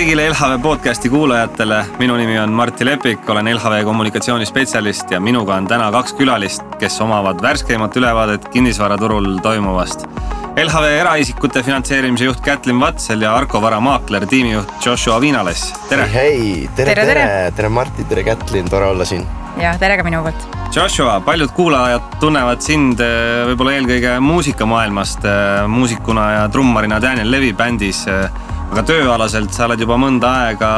kõigile LHV podcasti kuulajatele, minu nimi on Martti Lepik, olen LHV kommunikatsioonispetsialist ja minuga on täna 2 külalist, kes omavad värskeimat ülevaadet kinnisvaraturul toimuvast. LHV eraisikute finantseerimise juht Kätlin Vatsel ja Arko Vara maakler tiimijuht Joshua Viinales. Tere! Hei, tere Martti, tere Kätlin, tore olla siin. Ja tere ka minu poolt. Joshua, paljud kuulajad tunnevad sind võib-olla eelkõige muusikamaailmast, muusikuna ja trummarina Daniel Levi bändis, aga tööalaselt sa oled juba mõnda aega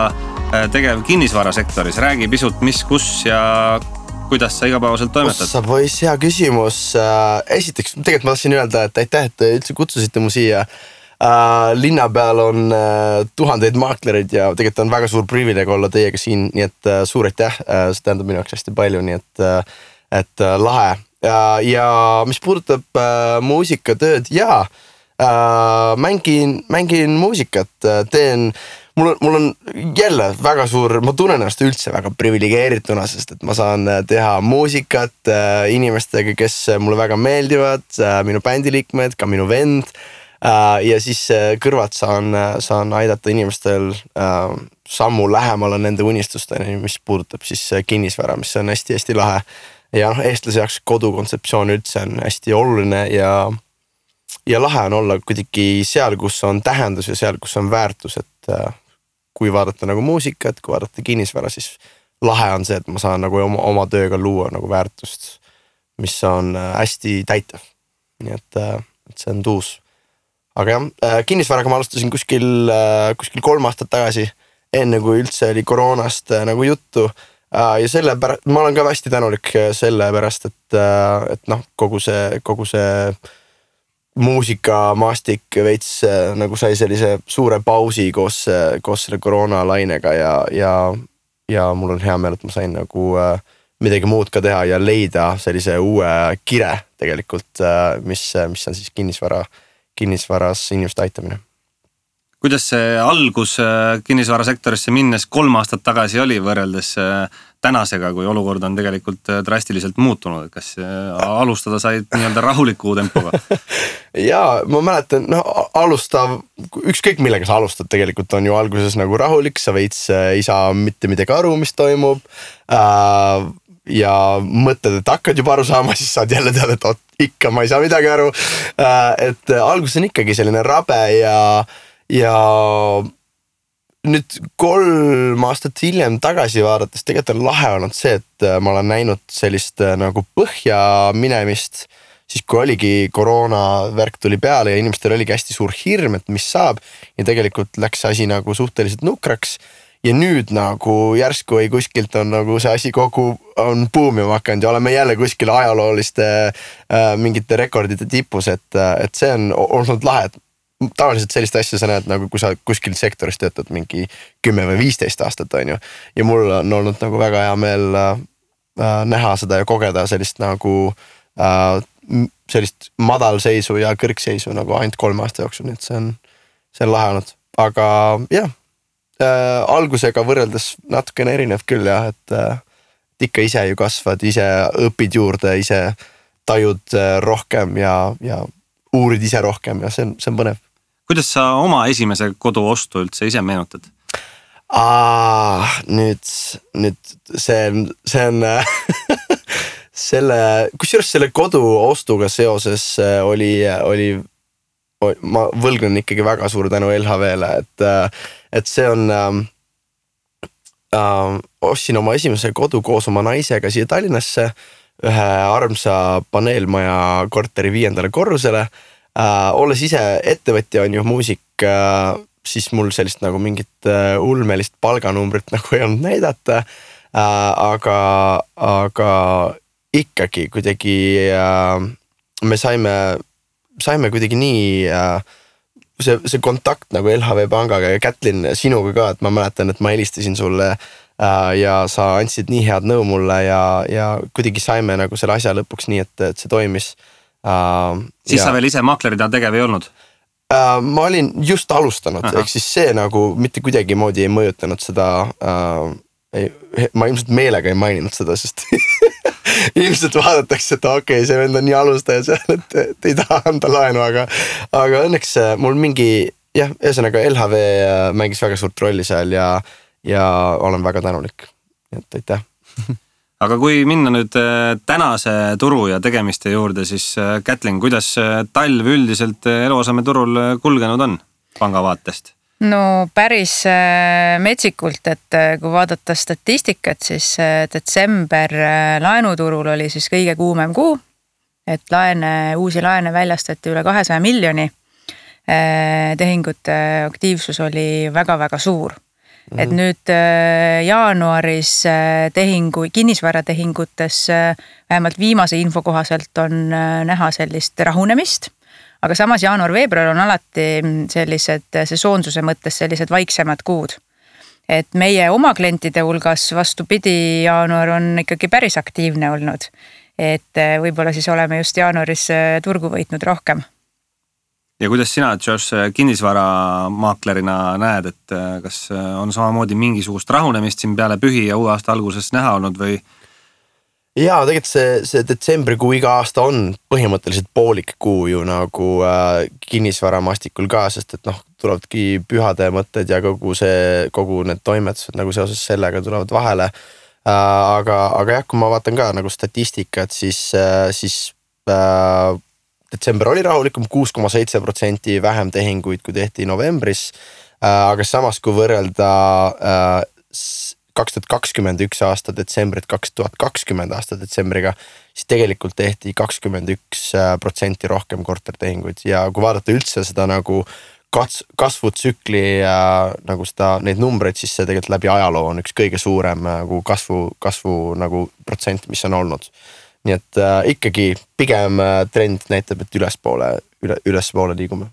tegev kinnisvarasektoris. Räägi pisut, mis, kus ja kuidas sa igapäevaselt toimetad? Ossa poiss, hea küsimus. Esiteks, tegelikult ma tahtsin öelda, et aitäh, et üldse kutsusite mu siia. Linna peal on tuhandeid maaklerid ja tegelikult on väga suur privileeg olla teiega siin, nii et suur aitäh, see tähendab minu jaoks hästi palju, nii et lahe. Ja mis puudutab muusikatööd, mängin muusikat, mul on jälle väga suur, ma tunnen ennast üldse väga privilegeerituna, sest et ma saan teha muusikat inimestega, kes mulle väga meeldivad, minu bändiliikmed, ka minu vend. Ja siis kõrvalt saan aidata inimestel sammu lähemale nende unistusteni, mis puudutab siis kinnisvara, mis on hästi-hästi lahe. Ja eestlase jaoks kodukontseptsioon üldse on hästi oluline ja lahe on olla kuidagi seal, kus on tähendus ja seal, kus on väärtus, et kui vaadata nagu muusikat, kui vaadata kinnisvara, siis lahe on see, et ma saan nagu oma tööga luua nagu väärtust, mis on hästi täitav. Nii et see on tuus. Aga jah, kinnisvaraga ma alustasin kuskil 3 aastat tagasi, enne kui üldse oli koroonast nagu juttu. Ja sellepärast, ma olen ka hästi tänulik sellepärast, et kogu see muusikamaastik veits nagu sai sellise suure pausi koos selle koroonalainega ja mul on hea meel, et ma sain nagu midagi muud ka teha ja leida sellise uue kire tegelikult, mis on siis kinnisvaras inimeste aitamine. Kuidas see algus kinnisvarasektorisse minnes 3 aastat tagasi oli võrreldes tänasega, kui olukord on tegelikult drastiliselt muutunud? Kas alustada said nii-öelda rahuliku tempoga? Jaa, ma mäletan, ükskõik millega sa alustad tegelikult on ju alguses nagu rahulik, sa veits ei saa mitte midagi aru, mis toimub ja mõtled, et hakkad juba aru saama, siis saad jälle teada, et ikka ma ei saa midagi aru. Et alguses on ikkagi selline rabe ja nüüd 3 aastat hiljem tagasi vaadates tegelikult on lahe olnud see, et ma olen näinud sellist nagu põhja minemist, siis kui oligi koroonavärk tuli peale ja inimestel oligi hästi suur hirm, et mis saab ja tegelikult läks asi nagu suhteliselt nukraks. Ja nüüd nagu järsku või kuskilt on nagu see asi kogu on buumima hakanud ja oleme jälle kuskil ajalooliste mingite rekordide tipus, et see on olnud lahe. Tavaliselt sellist asja sa näed nagu kui sa kuskil sektoris töötad mingi 10 või 15 aastat on ju. Ja mul on olnud nagu väga hea meel näha seda ja kogeda sellist nagu sellist madalseisu ja kõrgseisu nagu ainult 3 aasta jooksul, nii et see on lahe olnud. Aga jah. Algusega võrreldes natukene erinev küll jah, et ikka ise ju kasvad, ise õpid juurde, ise tajud rohkem ja uurid ise rohkem ja see on põnev. Kuidas sa oma esimese kodu ostu üldse ise meenutad? Nüüd see on kusjuures selle kodu ostuga seoses oli ma võlgnen ikkagi väga suur tänu LHV-le, et see on ostsin oma esimese kodu koos oma naisega siia Tallinnasse ühe armsa paneelmaja korteri 5. korrusele. Olles ise ettevõtja on ju muusik, siis mul sellist nagu mingit ulmelist palganumbrit nagu ei olnud näidata, aga ikkagi kuidagi me saime kuidagi nii see kontakt nagu LHV pangaga ja Kätlin sinuga ka, et ma mäletan, et ma helistasin sulle ja sa andsid nii head nõu mulle ja kuidagi saime nagu selle asja lõpuks nii, et see toimis. Siis sa veel ise maaklerina tegev ei olnud? Ma olin just alustanud, ehk siis see nagu mitte kuidagi moodi ei mõjutanud seda, ma ilmselt meelega ei maininud seda, sest ilmselt vaadatakse, et okei, see vend on nii alustaja seal, et ei taha anda laenu, aga õnneks mul mingi jah, ühesõnaga LHV mängis väga suurt rolli seal ja olen väga tänulik, et aitäh. Aga kui minna nüüd tänase turu ja tegemiste juurde, siis Kätlin, kuidas talv üldiselt eluasemeturul kulgenud on panga vaatest? No päris metsikult, et kui vaadata statistikat, siis detsember laenuturul oli siis kõige kuumem kuu, et uusi laene väljastati üle 200 miljoni. Tehingute aktiivsus oli väga-väga suur. Et nüüd jaanuaris kinnisvaratehingutes vähemalt viimase info kohaselt on näha sellist rahunemist, aga samas jaanuar-veebruar on alati sellised sesoonsuse mõttes sellised vaiksemad kuud. Et meie oma klientide hulgas vastupidi, jaanuar on ikkagi päris aktiivne olnud. Et võib-olla siis oleme just jaanuaris turgu võitnud rohkem. Ja kuidas sina, Josh, kinnisvaramaaklerina näed, et kas on samamoodi mingisugust rahunemist siin peale pühi ja uue aasta alguses näha olnud või? Jaa, tegelikult see detsembrikuu iga aasta on põhimõtteliselt poolik kuu ju nagu kinnisvaramastikul ka, sest et tulevadki pühade mõtted ja kogu need toimetused nagu seoses sellega tulevad vahele. Aga jah, kui ma vaatan ka nagu statistikat, siis detsember oli rahulikum, 6,7% vähem tehinguid, kui tehti novembris, aga samas kui võrrelda 2021 aasta detsembrit 2020 aasta detsembriga, siis tegelikult tehti 21% rohkem kortertehinguid ja kui vaadata üldse seda nagu kasvutsükli nagu neid numbreid, siis see tegelikult läbi ajaloo on üks kõige suurem nagu kasvu nagu protsent, mis on olnud. Nii et ikkagi pigem trend näitab, et ülespoole liigume.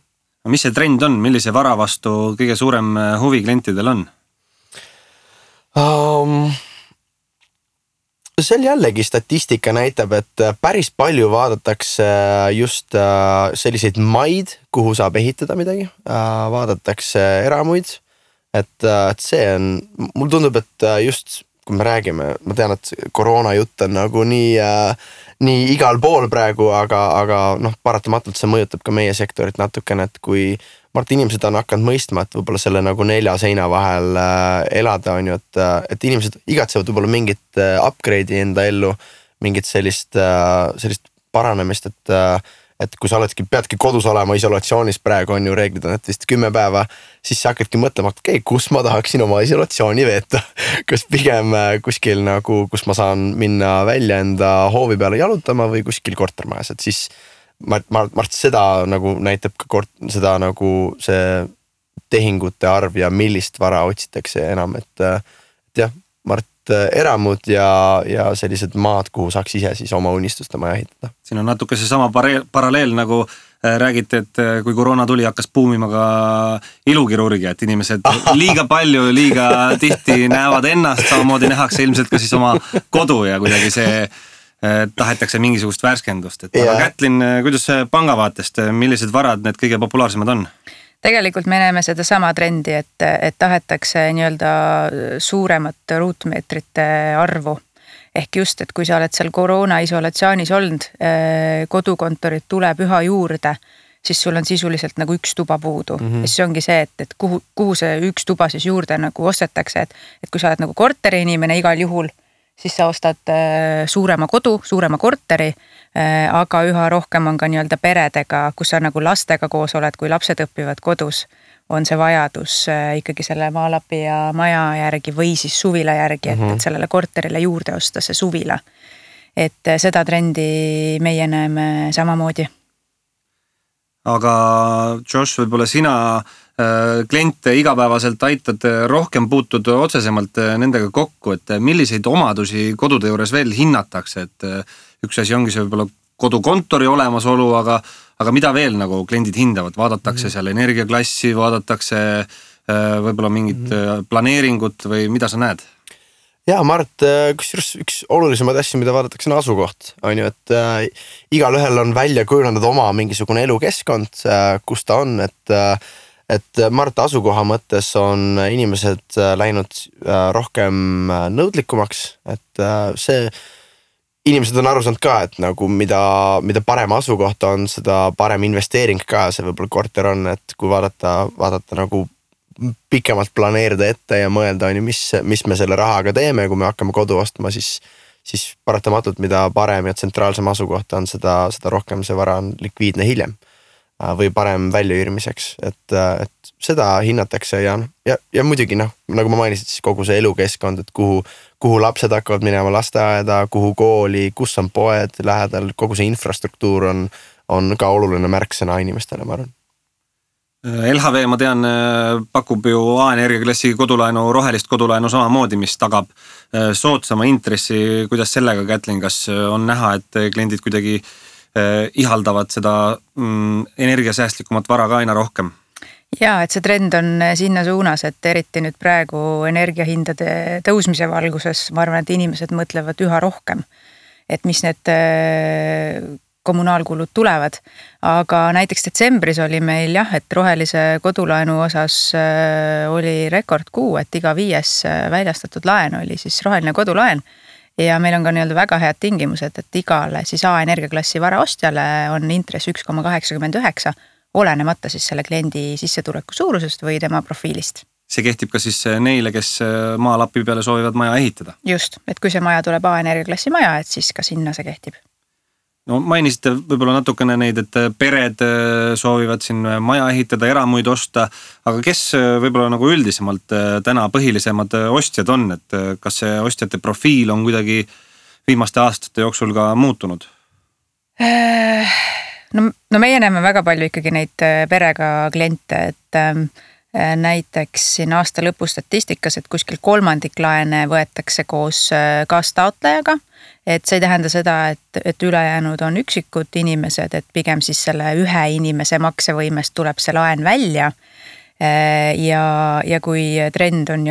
Mis see trend on? Millise vara vastu kõige suurem huvi klientidel on? Seal jällegi statistika näitab, et päris palju vaadatakse just selliseid maid, kuhu saab ehitada midagi. Vaadatakse eramuid. Et see on, mul tundub, et just kui me räägime, ma tean, et koroona jutt on nagu nii igal pool praegu, aga paratamatult see mõjutab ka meie sektorit natukene, et kui inimesed on hakanud mõistma, et võib-olla selle nagu 4 seina vahel elada on ju, et inimesed igatsevad võib-olla mingit upgrade'i enda ellu, mingit sellist paranemist, et kui sa peadki kodus olema isolatsioonis, praegu on ju reeglid on, et vist 10 päeva, siis sa hakkadki mõtlema, et kus ma tahaksin oma isolatsiooni veeta. Kas pigem kuskil nagu, kus ma saan minna välja enda hoovi peale jalutama või kuskil kortermajas, et siis ma seda nagu näitab ka seda nagu see tehingute arv ja millist vara otsitakse enam, et jah, eramud ja sellised maad, kuhu saaks ise siis oma unistuste maja ehitada. Siin on natuke see sama paralleel nagu räägite, et kui koroona tuli, hakkas buumima ka ilukirurgia, et inimesed liiga palju, liiga tihti näevad ennast, samamoodi nähakse ilmselt ka siis oma kodu ja kuidagi see tahetakse mingisugust värskendust. Aga Kätlin, kuidas panga vaatest, millised varad need kõige populaarsemad on? Tegelikult me näeme seda sama trendi, et tahetakse nii-öelda suuremat ruutmeetrite arvu. Ehk just, et kui sa oled seal koroona isolatsioonis olnud, kodukontorid tuleb üha juurde, siis sul on sisuliselt nagu üks tuba puudu. Ja siis ongi see, et kuhu see üks tuba siis juurde nagu ostetakse, et kui sa oled nagu korteri inimene igal juhul, siis sa ostad suurema kodu, suurema korteri, aga üha rohkem on ka nii-öelda peredega, kus sa nagu lastega koos oled, kui lapsed õpivad kodus, on see vajadus ikkagi selle maalapi ja maja järgi või siis suvila järgi, et sellele korterile juurde osta see suvila. Et seda trendi meie näeme samamoodi. Aga Josh, võib-olla sina kliente igapäevaselt aitad, rohkem puutud otsesemalt nendega kokku, et milliseid omadusi kodude juures veel hinnatakse, et üks asi ongi see võib-olla kodukontori olemasolu, aga mida veel nagu kliendid hindavad, vaadatakse seal energiaklassi, vaadatakse võib-olla mingit planeeringut või mida sa näed? Jaa, Mart, üks olulisemaid asju, mida vaadatakse on asukoht, on ju, et igal ühel on välja kujunenud oma mingisugune elukeskkond, kus ta on, et Mart asukoha mõttes on inimesed läinud rohkem nõudlikumaks, et see inimesed on aru saanud ka, et nagu mida parem asukoht on, seda parem investeering ka see võib-olla korter on, et kui vaadata nagu pikemalt planeerida ette ja mõelda, mis me selle rahaga teeme, kui me hakkame kodu ostma, siis paratamatult, mida parem ja tsentraalsem asukoht on, seda rohkem see vara on likviidne hiljem või parem väljaüürimiseks, et seda hinnatakse ja muidugi nagu ma mainisin, siis kogu see elukeskkond, et kuhu lapsed hakkavad minema lasteaeda, kuhu kooli, kus on poed lähedal, kogu see infrastruktuur on ka oluline märksõna inimestele, ma arvan. LHV, ma tean, pakub ju A-energiaklassi kodulaenu, rohelist kodulaenu samamoodi, mis tagab soodsama intressi. Kuidas sellega, Kätlin, kas on näha, et kliendid kuidagi ihaldavad seda energiasäästlikumat vara ka aina rohkem? Jaa, et see trend on sinna suunas, et eriti nüüd praegu energiahindade tõusmise valguses, ma arvan, et inimesed mõtlevad üha rohkem, et mis need kommunaalkulud tulevad. Aga näiteks detsembris oli meil et rohelise kodulaenu osas oli rekordkuu, et iga 5 väljastatud laen oli siis roheline kodulaen. Ja meil on ka väga head tingimused, et igale siis A-energiaklassi vara ostjale on intress 1,89, olenemata siis selle kliendi sissetuleku suurusest või tema profiilist. See kehtib ka siis neile, kes maalapi peale soovivad maja ehitada? Just, et kui see maja tuleb A-energiaklassi maja, et siis ka sinna see kehtib. No mainisite võib-olla natukene neid, et pered soovivad siin maja ehitada, eramuid osta, aga kes võib-olla nagu üldisemalt täna põhilisemad ostjad on, et kas see ostjate profiil on kuidagi viimaste aastate jooksul ka muutunud? No meie näeme väga palju ikkagi neid perega kliente, et näiteks siin aasta lõpu statistikas, et kuskil 1/3 laene võetakse koos kaastaotlejaga, et see ei tähenda seda, et ülejäänud on üksikud inimesed, et pigem siis selle ühe inimese maksevõimest tuleb see laen välja ja kui trend on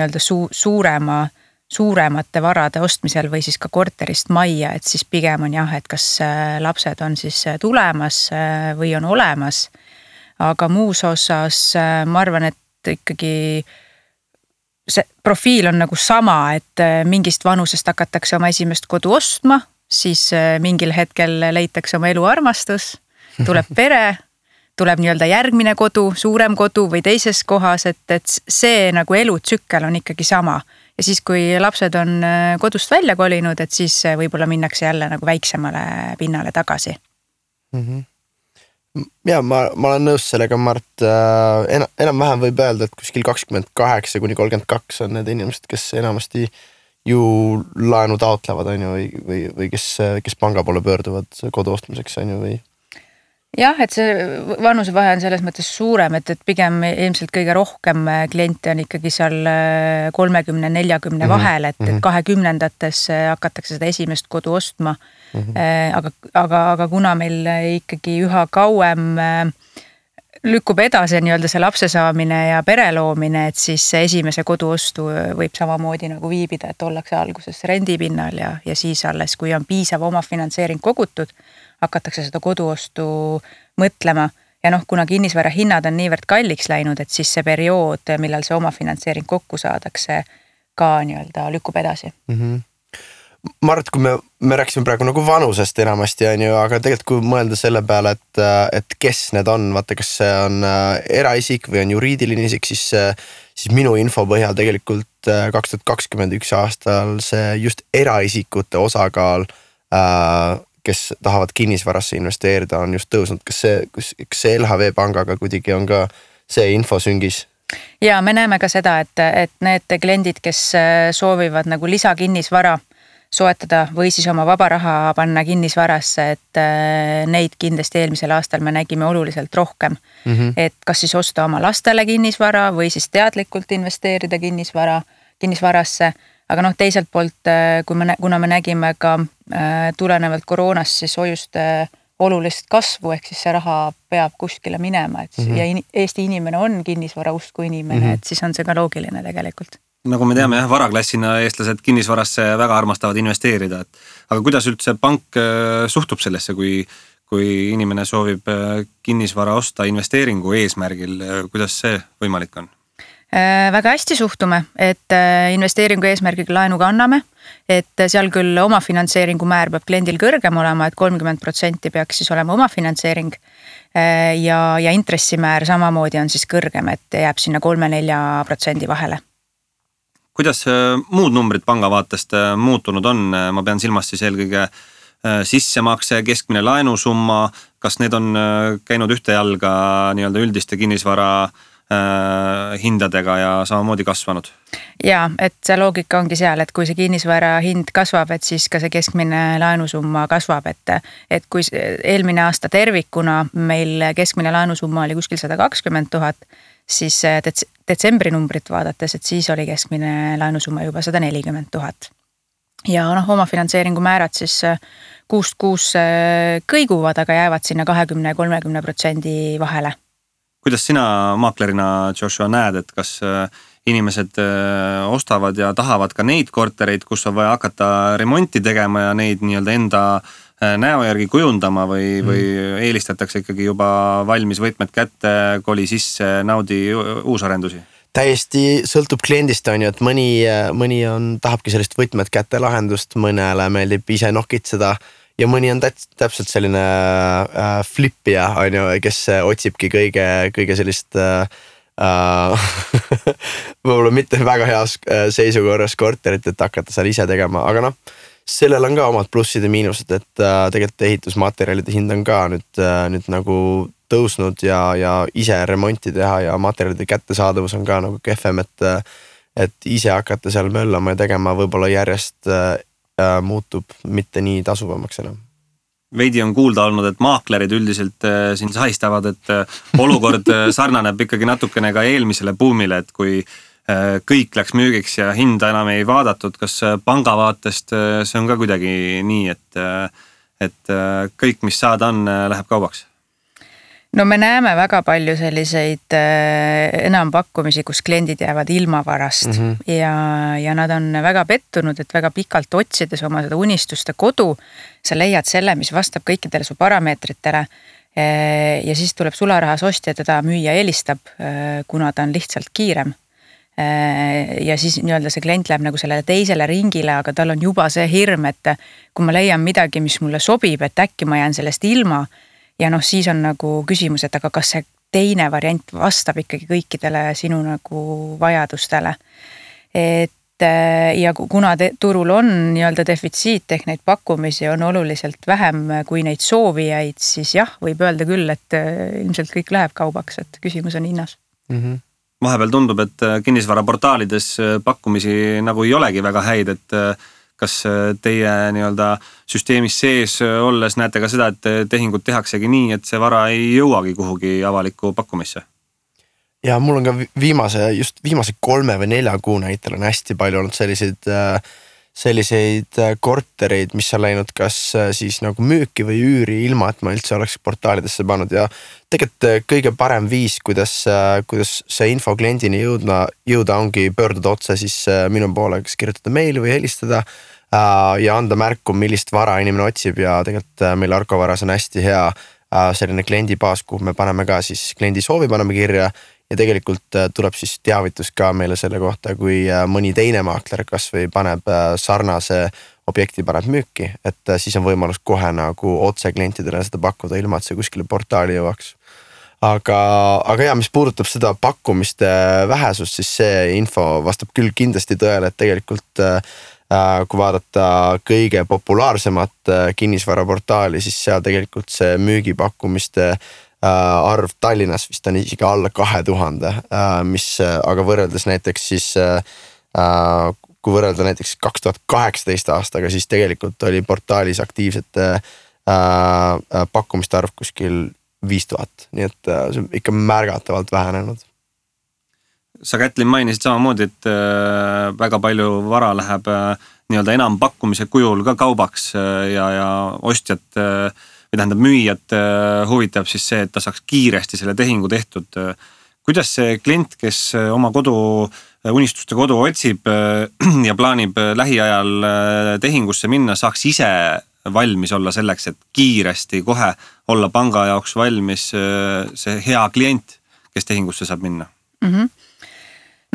suuremate varade ostmisel või siis ka korterist majja, et siis pigem on et kas lapsed on siis tulemas või on olemas, aga muus osas ma arvan, et ikkagi see profiil on nagu sama, et mingist vanusest hakatakse oma esimest kodu ostma, siis mingil hetkel leitakse oma eluarmastus, tuleb pere, tuleb järgmine kodu, suurem kodu või teises kohas, et see nagu elutsükkel on ikkagi sama. Ja siis, kui lapsed on kodust välja kolinud, et siis võib-olla minnakse jälle nagu väiksemale pinnale tagasi. Ja ma olen nõus sellega, Mart, enam-vähem võib öelda, et kuskil 28-32 on need inimesed, kes enamasti ju laenu taotlevad, või kes panga poole pöörduvad kodu ostmiseks, või? Jah, et see vanusevahe on selles mõttes suurem, et pigem ilmselt kõige rohkem kliente on ikkagi seal 30-40 vahel, et 20-ndates hakatakse seda esimest kodu ostma. Aga kuna meil ikkagi üha kauem lükkub edasi see lapse saamine ja pere loomine, et siis esimese kodu ostu võib samamoodi nagu viibida, et ollakse alguses rendipinnal ja siis alles, kui on piisav omafinantseering kogutud, hakatakse seda koduostu mõtlema ja kuna kinnisvara hinnad on niivõrd kalliks läinud, et siis see periood, millal see omafinantseering kokku saadakse, ka lükkub edasi. Mart, kui me rääksime praegu nagu vanusest enamasti, aga tegelikult kui mõelda selle peale, et kes need on, vaata, kas see on eraisik või on juriidiline isik, siis minu info põhjal tegelikult 2021 aastal see just eraisikute osakaal, kes tahavad kinnisvarasse investeerida, on just tõusnud. Kas see LHV pangaga kuidagi on ka see info süngis? Ja me näeme ka seda, et need kliendid, kes soovivad nagu lisakinnisvara soetada või siis oma vaba raha panna kinnisvarasse, et neid kindlasti eelmisel aastal me nägime oluliselt rohkem. Et kas siis osta oma lastele kinnisvara või siis teadlikult investeerida kinnisvarasse. Aga teiselt poolt, kuna me nägime ka tulenevalt koroonast siis hoiuste olulist kasvu, ehk siis see raha peab kuskile minema, ja Eesti inimene on kinnisvara usku inimene, et siis on see ka loogiline tegelikult. Nagu me teame, varaklassina eestlased kinnisvarasse väga armastavad investeerida, aga kuidas üldse pank suhtub sellesse, kui inimene soovib kinnisvara osta investeeringu eesmärgil, kuidas see võimalik on? Väga hästi suhtume, et investeeringu eesmärgiga laenuga anname, et seal küll omafinantseeringu määr peab kliendil kõrgem olema, et 30% peaks siis olema omafinantseering ja intressimäär samamoodi on siis kõrgem, et jääb sinna 3-4% vahele. Kuidas muud numbrid panga vaatest muutunud on? Ma pean silmas siis eelkõige sissemakse, keskmine laenusumma, kas need on käinud ühte jalga nii-öelda üldiste kinnisvara hindadega ja samamoodi kasvanud? Ja, et see loogika ongi seal, et kui see kinnisvara hind kasvab, et siis ka see keskmine laenusumma kasvab, et kui eelmine aasta tervikuna meil keskmine laenusumma oli kuskil 120 000, siis detsembri numbrit vaadates, et siis oli keskmine laenusumma juba 140 000. Ja omafinantseeringu määrad siis kuust kõiguvad, aga jäävad sinna 20-30% vahele. Kuidas sina maaklerina, Joshua, näed, et kas inimesed ostavad ja tahavad ka neid kortereid, kus on vaja hakata remonti tegema ja neid nii-öelda enda näo järgi kujundama või eelistatakse ikkagi juba valmis võtmed kätte, koli sisse, naudi uusarendusi? Täiesti sõltub kliendist on ju, et mõni tahabki sellist võtmed kätte lahendust, mõnele meeldib ise nokitseda ja mõni on täpselt selline flippija, on ju, kes otsibki kõige sellist võib-olla mitte väga heas seisukorras korterit, et hakata seal ise tegema, aga sellel on ka omad plussid ja miinused, et tegelikult ehitusmaterjalide hind on ka nüüd nagu tõusnud ja ise remonti teha ja materjalide kättesaadavus on ka nagu kehvem, et ise hakata seal möllama ja tegema võib-olla järjest muutub mitte nii tasuvamaks enam. Veidi on kuulda olnud, et maaklerid üldiselt siin sahistavad, et olukord sarnaneb ikkagi natukene ka eelmisele buumile, et kui kõik läks müügiks ja hinda enam ei vaadatud, kas panga vaatest see on ka kuidagi nii, et kõik, mis saada on, läheb kaubaks? No me näeme väga palju selliseid enampakkumisi, kus kliendid jäävad ilma varast ja nad on väga pettunud, et väga pikalt otsides oma seda unistuste kodu, sa leiad selle, mis vastab kõikidele su parameetritele ja siis tuleb sularahas ostja, teda müüja eelistab, kuna ta on lihtsalt kiirem. Ja siis nii-öelda see klient läheb nagu sellele teisele ringile, aga tal on juba see hirm, et kui ma leian midagi, mis mulle sobib, et äkki ma jään sellest ilma. Ja siis on nagu küsimus, et aga kas see teine variant vastab ikkagi kõikidele sinu nagu vajadustele. Ja kuna turul on nii-öelda defitsiit ehk neid pakkumisi on oluliselt vähem kui neid soovijaid, siis jah, võib öelda küll, et ilmselt kõik läheb kaubaks, et küsimus on hinnas. Vahepeal tundub, et kinnisvaraportaalides pakkumisi nagu ei olegi väga häid, et kas teie nii-öelda süsteemis sees olles näete ka seda, et tehingud tehaksegi nii, et see vara ei jõuagi kuhugi avalikku pakkumisse? Ja mul on ka viimase 3 või 4 kuu näitel on hästi palju olnud selliseid kortereid, mis on läinud kas siis nagu müüki või üüri ilma, et ma üldse oleks portaalidesse pannud ja tegelikult kõige parem viis, kuidas see info kliendini jõuda ongi pöörduda otse siis minu poole, kas kirjutada meili või helistada ja anda märku, millist vara inimene otsib ja tegelikult meil Arko Varas on hästi hea selline kliendibaas, kuhu me paneme ka siis kliendi soovi paneme kirja ja tegelikult tuleb siis teavitus ka meile selle kohta, kui mõni teine maakler kas või paneb sarnase objekti paneb müüki, et siis on võimalus kohe nagu otse klientidele seda pakkuda ilma, et see kuskile portaali jõuaks. Aga ja, mis puudutab seda pakkumiste vähesust, siis see info vastab küll kindlasti tõele, et tegelikult kui vaadata kõige populaarsemat kinnisvaraportaali, siis seal tegelikult see müügipakkumiste arv Tallinnas vist on isegi alla 2000, mis aga võrreldes näiteks siis, kui võrrelda näiteks 2018 aastaga, siis tegelikult oli portaalis aktiivsete pakkumiste arv kuskil 5000, nii et see on ikka märgatavalt vähenenud. Sa, Kätlin, mainisid samamoodi, et väga palju vara läheb nii-öelda enam pakkumise kujul ka kaubaks ja ostjat või tähendab müüjat huvitab siis see, et ta saaks kiiresti selle tehingu tehtud. Kuidas see klient, kes oma unistuste kodu otsib ja plaanib lähiajal tehingusse minna, saaks ise valmis olla selleks, et kiiresti kohe olla panga jaoks valmis see hea klient, kes tehingusse saab minna?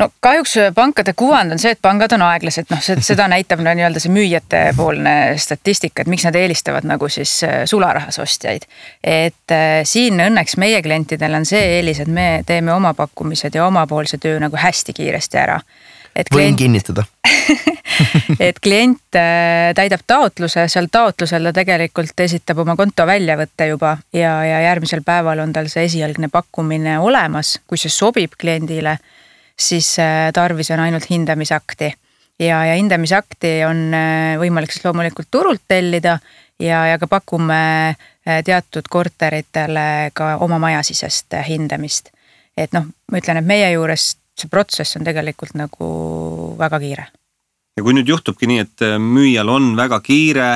no kahjuks pankade kuvand on see, et pangad on aeglased, noh seda näitab nii-öelda see müüjate poolne statistika, et miks nad eelistavad nagu siis sularahas ostjaid. Et siin õnneks meie klientidel on see eelis, et me teeme oma pakkumised ja omapoolse töö nagu hästi kiiresti ära. Võin kinnitada. Et klient täidab taotluse, seal taotlusel ta tegelikult esitab oma konto väljavõtte juba ja järgmisel päeval on tal see esialgne pakkumine olemas, kui see sobib kliendile, siis tarvis on ainult hindamisakti ja hindamisakti on võimalik siis loomulikult turult tellida ja ka pakume teatud korteritele ka oma majasisest hindamist. Et noh, ma ütlen, et meie juures see protsess on tegelikult nagu väga kiire. Ja kui nüüd juhtubki nii, et müüjal on väga kiire,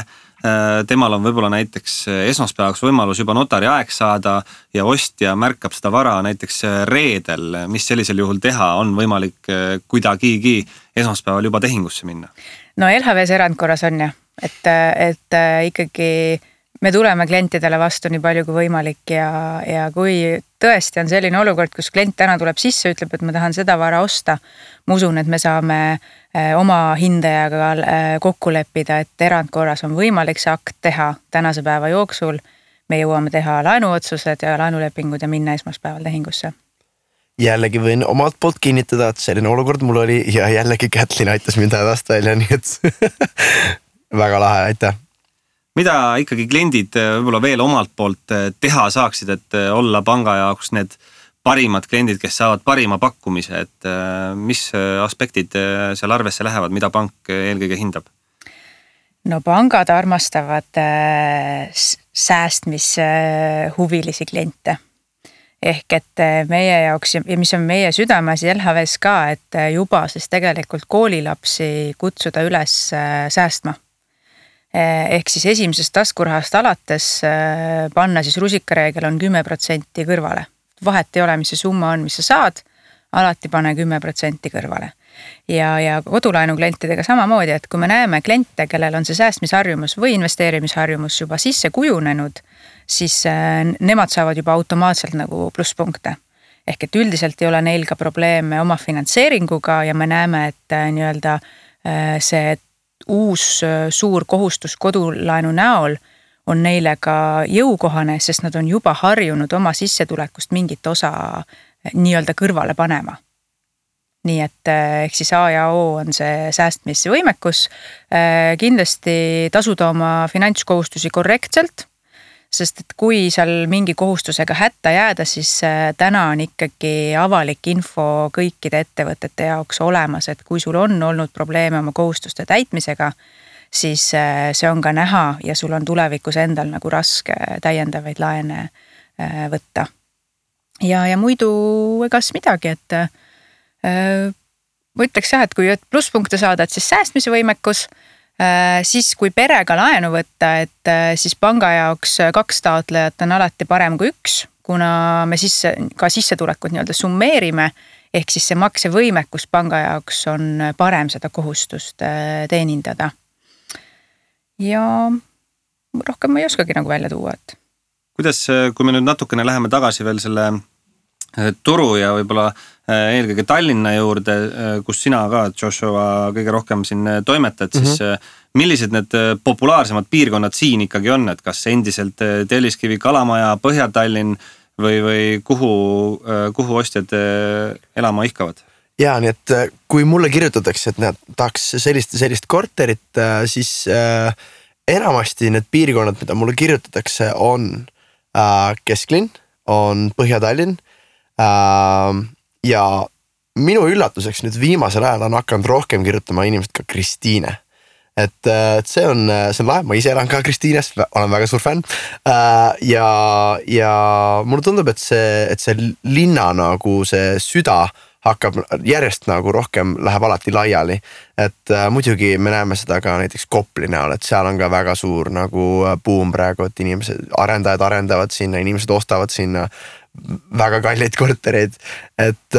temal on võib-olla näiteks esmaspäevaks võimalus juba notari aeg saada ja ostja märkab seda vara näiteks reedel, mis sellisel juhul teha, on võimalik kuidagigi esmaspäeval juba tehingusse minna? No LHVs erandkorras on jah, et ikkagi me tuleme klientidele vastu nii palju kui võimalik ja kui tõesti on selline olukord, kus klient täna tuleb sisse, ütleb, et ma tahan seda vara osta, ma usun, et me saame oma hindajaga kokku leppida, et erandkorras on võimalik see akt teha tänase päeva jooksul. Me jõuame teha laenuotsused ja laenulepingud ja minna esmaspäeval tehingusse. Jällegi võin omalt poolt kinnitada, et selline olukord mul oli ja jällegi Kätlin aitas mind hädast välja, nii et väga lahe, aitäh. Mida ikkagi kliendid võib-olla veel omalt poolt teha saaksid, et olla panga jaoks need parimad kliendid, kes saavad parima pakkumise, et mis aspektid seal arvesse lähevad, mida pank eelkõige hindab? No pangad armastavad säästmishuvilisi kliente. Ehk et meie jaoks ja mis on meie südameasi LHVs ka, et juba siis tegelikult koolilapsi kutsuda üles säästma. Ehk siis esimesest taskurahast alates panna siis rusikareegel on 10% kõrvale. Vahet ei ole, mis see summa on, mis sa saad, alati pane 10% kõrvale. Ja kodulaenu klientidega samamoodi, et kui me näeme kliente, kellel on see säästmisharjumus või investeerimisharjumus juba sisse kujunenud, siis nemad saavad juba automaatselt nagu plusspunkte. Ehk et üldiselt ei ole neil ka probleeme oma finantseeringuga ja me näeme, et nii-öelda see uus suur kohustus kodulaenu näol on neile ka jõukohane, sest nad on juba harjunud oma sissetulekust mingit osa nii-öelda kõrvale panema. Nii et ehk siis A ja O on see säästmisvõimekus, kindlasti tasuda oma finantskohustusi korrektselt, sest et kui seal mingi kohustusega hätta jääda, siis täna on ikkagi avalik info kõikide ettevõtete jaoks olemas, et kui sul on olnud probleeme oma kohustuste täitmisega, siis see on ka näha ja sul on tulevikus endal nagu raske täiendavaid laene võtta. Ja muidu egas midagi, et ma ütleks jah, et kui plusspunkte saada, et siis säästmise võimekus, siis kui perega laenu võtta, et siis panga jaoks 2 taotlejat on alati parem kui 1, kuna me siis ka sissetulekut nii-öelda summeerime, ehk siis see maksevõimekus panga jaoks on parem seda kohustust teenindada. Ja rohkem ma ei oskagi nagu välja tuua, et kuidas, kui me nüüd natukene läheme tagasi veel selle turu ja võib-olla eelkõige Tallinna juurde, kus sina ka, Joshua, kõige rohkem siin toimetad, siis millised need populaarsemad piirkonnad siin ikkagi on, et kas endiselt Telliskivi, Kalamaja, Põhja-Tallinn või kuhu ostjad elama ihkavad? Ja nii, et kui mulle kirjutatakse, et nad tahaks sellist korterit, siis enamasti need piirkonnad, mida mulle kirjutatakse, on Kesklinn, on Põhja-Tallinn ja minu üllatuseks nüüd viimasel ajal on hakanud rohkem kirjutama inimesed ka Kristiine. Et see on lahe, ma ise elan ka Kristiines, olen väga suur fänn ja mulle tundub, et see linna nagu see süda hakkab järjest nagu rohkem läheb alati laiali, et muidugi me näeme seda ka näiteks Kopli näol, et seal on ka väga suur nagu buum praegu, et arendajad arendavad sinna, inimesed ostavad sinna väga kalleid kortereid, et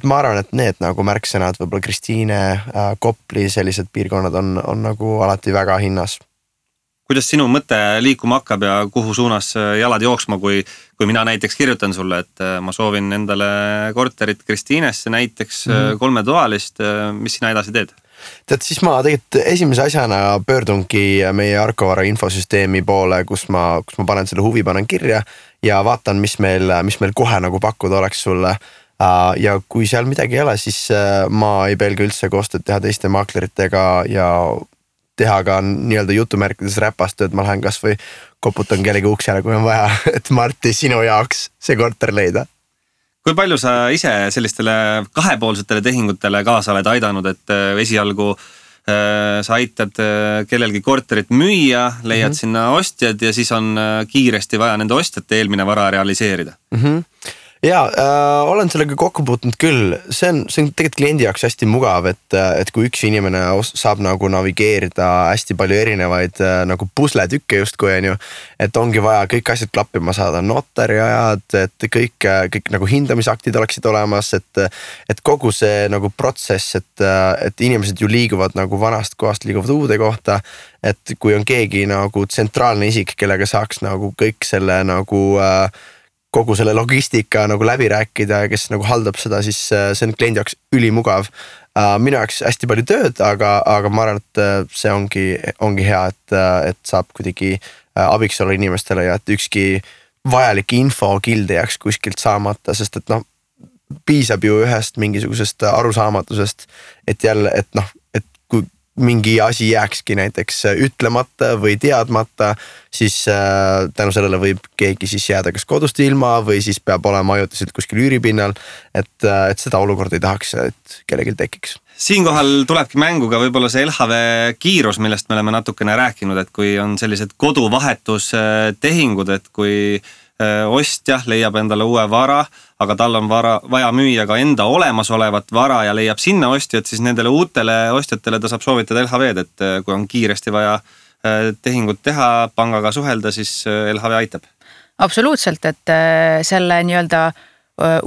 ma arvan, et need nagu märksõnad, võib-olla Kristiine, Kopli, sellised piirkonnad on nagu alati väga hinnas. kuidas sinu mõte liikuma hakkab ja kuhu suunas jalad jooksma, kui mina näiteks kirjutan sulle, et ma soovin endale korterit Kristiinesse näiteks 3-toalist, mis sina edasi teed? Tead, siis ma tegelikult esimese asjana pöördungi meie Arkovara infosüsteemi poole, kus ma panen selle huvi, panen kirja ja vaatan, mis meil kohe nagu pakkuda oleks sulle. Ja kui seal midagi ei ole, siis ma ei pelga üldse koostööd teha teiste maakleritega ja teha ka nii-öelda jutumärkides räpastööd, ma lähen kas või koputan kellegi uksele, kui on vaja, et Marti, sinu jaoks see korter leida. Kui palju sa ise sellistele kahepoolsetele tehingutele kaasa oled aidanud, et esialgu sa aitad kellelgi korterit müüa, leiad sinna ostjad ja siis on kiiresti vaja nende ostjate eelmine vara realiseerida? Ja olen sellega kokku puutunud küll, see on tegelikult kliendi jaoks hästi mugav, et kui üks inimene saab nagu navigeerida hästi palju erinevaid nagu pusletükke justkui on ju, et ongi vaja kõik asjad klappima saada, notari ajad, et kõik nagu hindamisaktid oleksid olemas, et kogu see nagu protsess, et inimesed ju liiguvad nagu vanast kohast liiguvad uude kohta, et kui on keegi nagu tsentraalne isik, kellega saaks nagu kõik selle nagu kogu selle logistika nagu läbi rääkida ja kes nagu haldab seda, siis see on kliendi jaoks ülimugav. Minu jaoks hästi palju tööd, aga ma arvan, et see ongi hea, et saab kuidagi abiks olla inimestele ja et ükski vajalik info kilde jääks kuskilt saamata, sest et piisab ju ühest mingisugusest arusaamatusest, et jälle, et kui mingi asi jääkski näiteks ütlemata või teadmata, siis tänu sellele võib keegi siis jääda kas kodust ilma või siis peab olema ajutiselt kuskil üüripinnal, et seda olukorda ei tahaks, et kellelgi tekiks. Siinkohal tulebki mängu ka võib-olla see LHV kiirus, millest me oleme natukene rääkinud, et kui on sellised koduvahetustehingud, et kui ostja leiab endale uue vara, aga tal on vaja müüa ka enda olemasolevat vara ja leiab sinna ostjad, siis nendele uutele ostjatele ta saab soovitada LHV-d, et kui on kiiresti vaja tehingut teha, pangaga suhelda, siis LHV aitab. Absoluutselt, et selle nii-öelda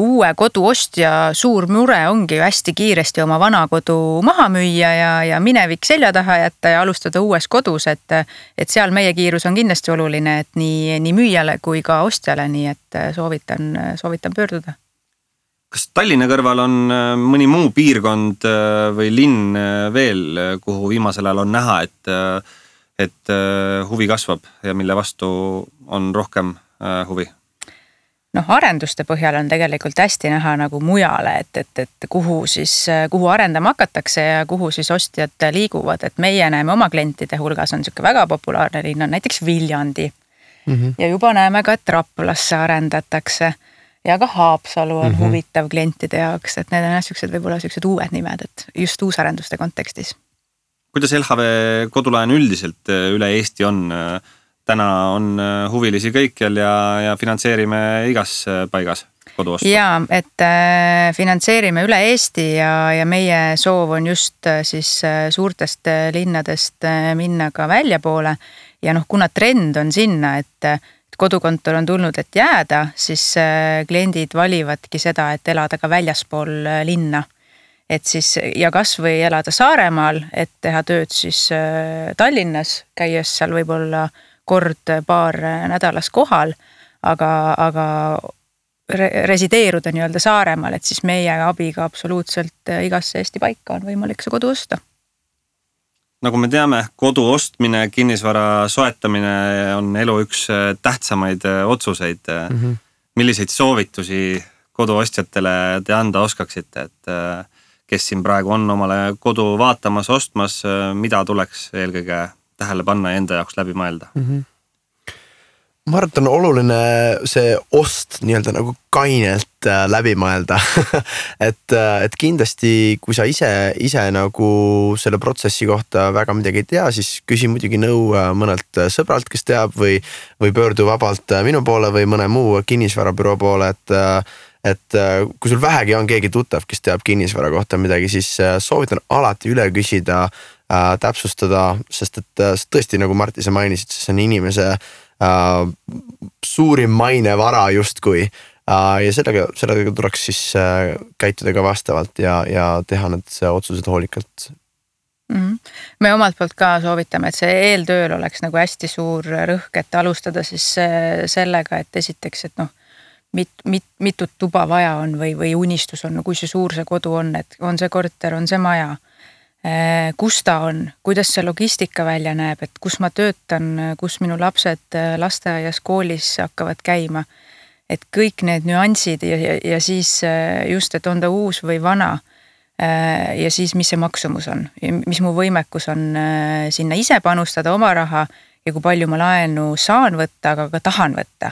uue kodu ostja suur mure ongi ju hästi kiiresti oma vana kodu maha müüa ja minevik selja taha jätta ja alustada uues kodus, et seal meie kiirus on kindlasti oluline, et nii müüjale kui ka ostjale, nii et soovitan pöörduda. Kas Tallinna kõrval on mõni muu piirkond või linn veel, kuhu viimasel ajal on näha, et huvi kasvab ja mille vastu on rohkem huvi? Arenduste põhjal on tegelikult hästi näha nagu mujale, et kuhu arendama hakatakse ja kuhu siis ostjad liiguvad, et meie näeme oma klientide hulgas on niisugune väga populaarne linn on näiteks Viljandi ja juba näeme ka, et Raplasse arendatakse ja ka Haapsalu on huvitav klientide jaoks, et need on võib-olla uued nimed, et just uusarenduste kontekstis. Kuidas LHV kodulaen üldiselt üle Eesti on? Täna on huvilisi kõikjal ja finantseerime igas paigas koduostu. Jaa, et finantseerime üle Eesti ja meie soov on just siis suurtest linnadest minna ka väljapoole ja kuna trend on sinna, et kodukontor on tulnud, et jääda, siis kliendid valivadki seda, et elada ka väljaspool linna. Et siis ja kas või elada Saaremaal, et teha tööd siis Tallinnas, käies seal võib-olla paar nädalas kohal, aga resideeruda nii-öelda Saaremaal, et siis meie abiga absoluutselt igasse Eesti paika on võimalik see kodu osta. Nagu me teame, kodu ostmine, kinnisvara soetamine on elu üks tähtsamaid otsuseid. Milliseid soovitusi koduostjatele te anda oskaksite, et kes siin praegu on omale kodu vaatamas, ostmas, mida tuleks eelkõige tähele panna ja enda jaoks läbi mõelda? Ma arvan, et on oluline see ost nii-öelda nagu kainelt läbi mõelda. et kindlasti, kui sa ise nagu selle protsessi kohta väga midagi ei tea, siis küsi muidugi nõu mõnelt sõbralt, kes teab või pöördu vabalt minu poole või mõne muu kinnisvarabüroo poole, et kui sul vähegi on keegi tuttav, kes teab kinnisvara kohta midagi, siis soovitan alati üle küsida, täpsustada, sest et tõesti, nagu Marti sa mainisid, see on inimese suurim mainevara justkui ja sellega tuleks siis käituda ka vastavalt ja teha need otsused hoolikalt. Me omalt poolt ka soovitame, et see eeltööl oleks nagu hästi suur rõhk, et alustada siis sellega, et esiteks, et mitut tuba vaja on või unistus on, kui see suur see kodu on, et on see korter, on see maja, kus ta on, kuidas see logistika välja näeb, et kus ma töötan, kus minu lapsed lasteaias, koolis hakkavad käima, et kõik need nüansid ja siis just, et on ta uus või vana ja siis mis see maksumus on, mis mu võimekus on sinna ise panustada oma raha ja kui palju ma laenu saan võtta, aga ka tahan võtta.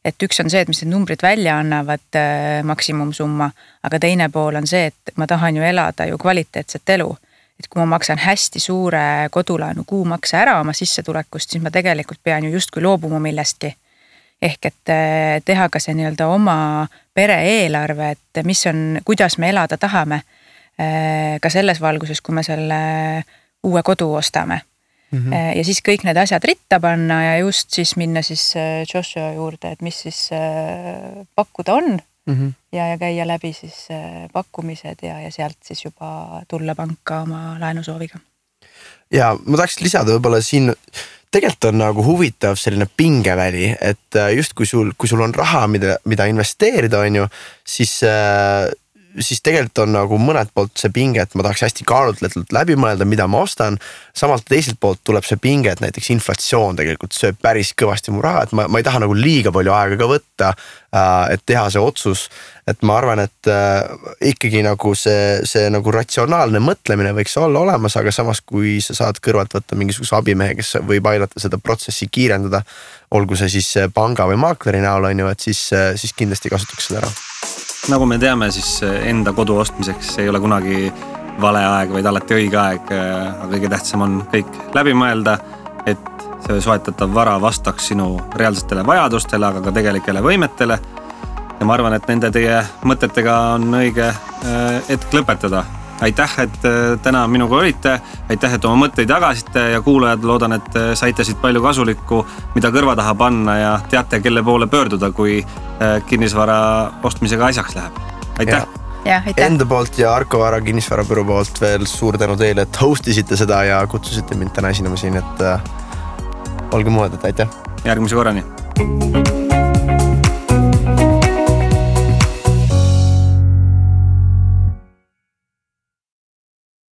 Et üks on see, et mis need numbrid välja annavad maksimumsumma, aga teine pool on see, et ma tahan ju elada ju kvaliteetset elu. Et kui ma maksan hästi suure kodulaenu kuumakse ära oma sissetulekust, siis ma tegelikult pean ju justkui loobuma millestki. Ehk et teha ka see nii-öelda oma pere eelarve, et mis on, kuidas me elada tahame ka selles valguses, kui me selle uue kodu ostame. Ja siis kõik need asjad ritta panna ja just siis minna siis Joshua juurde, et mis siis pakkuda on ja käia läbi siis pakkumised ja sealt siis juba tulla panka oma laenusooviga. Ja ma tahaks lisada võib-olla siin, tegelikult on nagu huvitav selline pingeväli, et just kui sul on raha, mida investeerida on ju, siis tegelikult on nagu mõned poolt see pinge, et ma tahaks hästi kaalutletult läbi mõelda, mida ma ostan. Samalt teiselt poolt tuleb see pinge, et näiteks inflatsioon tegelikult sööb päris kõvasti mu raha, et ma ei taha nagu liiga palju aega ka võtta, et teha see otsus. Et ma arvan, et ikkagi nagu see nagu ratsionaalne mõtlemine võiks olla olemas, aga samas kui sa saad kõrvalt võtta mingisuguse abimehe, kes võib aidata seda protsessi kiirendada, olgu see siis panga või maakleri näol on ju, et siis kindlasti kasutaks seda ära. Nagu me teame, siis enda kodu ostmiseks ei ole kunagi vale aeg, vaid alati õige aeg. Aga kõige tähtsam on kõik läbi mõelda, et see soetatav vara vastaks sinu reaalsetele vajadustele, aga ka tegelikele võimetele. Ja ma arvan, et nende teie mõtetega on õige hetk lõpetada. Aitäh, et täna minuga olite. Aitäh, et oma mõtteid jagasite ja kuulajad loodan, et saite siit palju kasulikku, mida kõrva taha panna ja teate, kelle poole pöörduda, kui kinnisvara ostmisega asjaks läheb. Aitäh! Ja, aitäh! Enda poolt ja Arko Vara kinnisvarabüroo poolt veel suur tänu teile, et hostisite seda ja kutsusite mind täna esinema siin, et olge muud, et aitäh! Järgmise korrani!